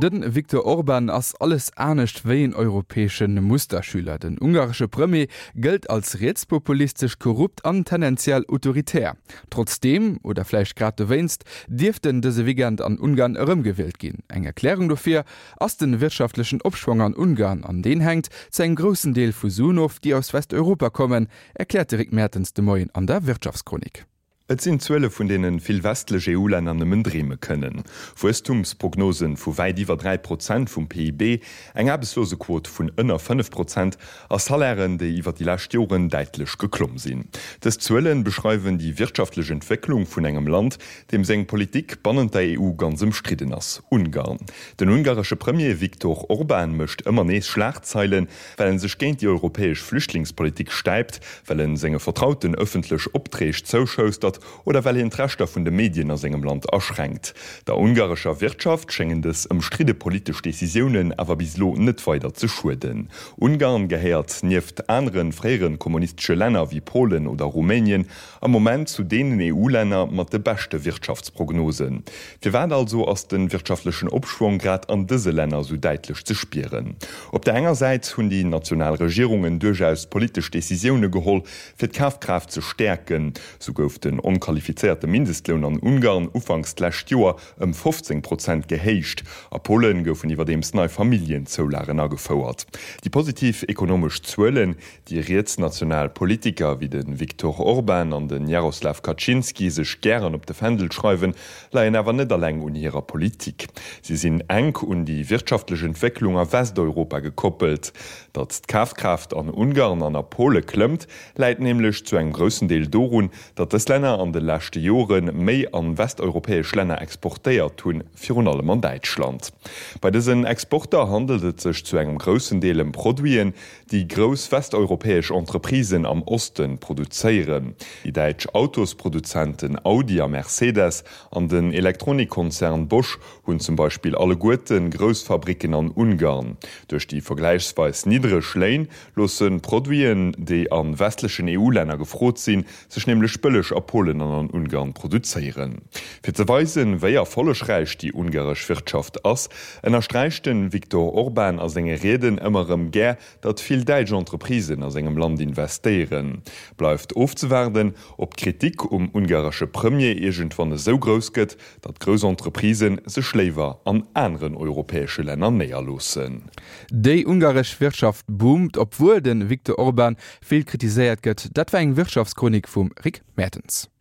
De Viktor Orban ass alles anescht wéi en europäesche Musterschüler. Den ungaresche Premier gëllt als rietspopulistesch, korrupt an tendenziell autoritär. Trotzdeem, oder vläicht grad dowéinst, dierft en dëse Weekend an Ungarn erëmgewielt ginn. Eng Erklärung dofir ass de wirtschaftlechen Opschwong an Ungarn, an deen hänkt zu engem groussen Deel vu Suen of, déi aus Westeuropa kommen, erkläert de Rick Mertens de Moien an der Wirtschaftschronik. Et sinn Zuele vun deene vill westlech EU-Länner nëmmen dreeme kënnen. Wuesstumsprognosen vu wäit iwwer 3 Prozent vum PIB, eng Aarbechtslosequot vun ënner 5 Prozent a Salairen, déi iwwer déi lescht Joren däitlech geklomm sinn. Dës Zuele beschreiwen déi wirtschaftlech Entwécklung vun engem Land, deem seng Politik bannent der EU ganz ëmstridden ass, Ungarn. Den ungaresche Premier Viktor Orban mécht ëmmer nees Schlagzeilen, well en sech géint déi europäesch Flüchtlingspolitik stäipt, well en senge Vertrauten ëffentlech Opträg zouschoustert oder well hien d'Rechter vun de Medien a sengem Land aschränkt. Der ungarescher Wirtschaft schéngen dës ëmstridde politesch Decisiounen awer bis elo net weider ze schueden. Ungarn gehéiert nieft anere fréiere kommunistesche Länner wéi Polen oder Rumänien am Moment zu deenen EU-Länner mat de beschte Wirtschaftsprognosen. Firwat also ass de wirtschaftlechen Opschwong grad an dëse Länner esou däitlech ze spieren? Op der enger Säit hunn déi national Regierungen duerchaus politesch Decisioune geholl, fir d'Kafkraaft ze stäerken. Sou gouf den onqualifizéierte Mindestloun an Ungarn ufanks d'lescht Joer ëm 15 Prozent gehéicht. A Polen goufen iwwerdeems nei Familljenzoulagen agefouert. Déi positiv ekonomesch Zuelen, Déi rietsnational Politiker wéi de Viktor Orban an de Jaroslaw Kaczynski sech gären op de Fändel schreiwen, leien awer net alleng un hirer Politik. Si sinn enk un déi wirtschaftlech Entwécklung a Westeuropa gekoppelt. Datt d'Kafkraaft an Ungarn an a Pole klëmmt, läit nämlech zu engem groussen Deel dorun, datt dës Länner an de leschte Jore méi a westeuropäesch Länner exportéiert hunn, virun allem an Däitschland. Bei dësen Exporter handelt et sech zu engem groussen Deel ëm Produiten, déi grouss westeuropäesch Entreprisen am Oste produzéieren. Déi däitsch Autosproduzenten Audi a Mercedes an den Elektronikkonzern Bosch hunn zum Beispill alleguerte grouss Fabricken an Ungarn. Duerch déi vergläichsweis niddreg Léin loosse Produiten, déi a westlechen EU-Länner gefrot sinn, sech nämlech bëlleg a Polen an an Ungarn produzéieren. Fir ze weisen, wéi erfollegräich déi ungaresch Wirtschaft ass, ënnersträicht de Viktor Orban a senge Rieden ëmmer erëm gär, datt vill däitsch Entreprisen a sengem Land investéieren. Bleift ofzewaarden, ob d'Kritik um ungaresche Premier iergendwann esou grouss gëtt, datt grouss Entreprisë sech léiwer an aneren europäesche Länner néierloossen. Déi ungaresch Wirtschaft boomt, obwuel de Viktor Orban vill kritiséiert gëtt. Dat war eng Wirtschaftschronik vum Rick Mertens.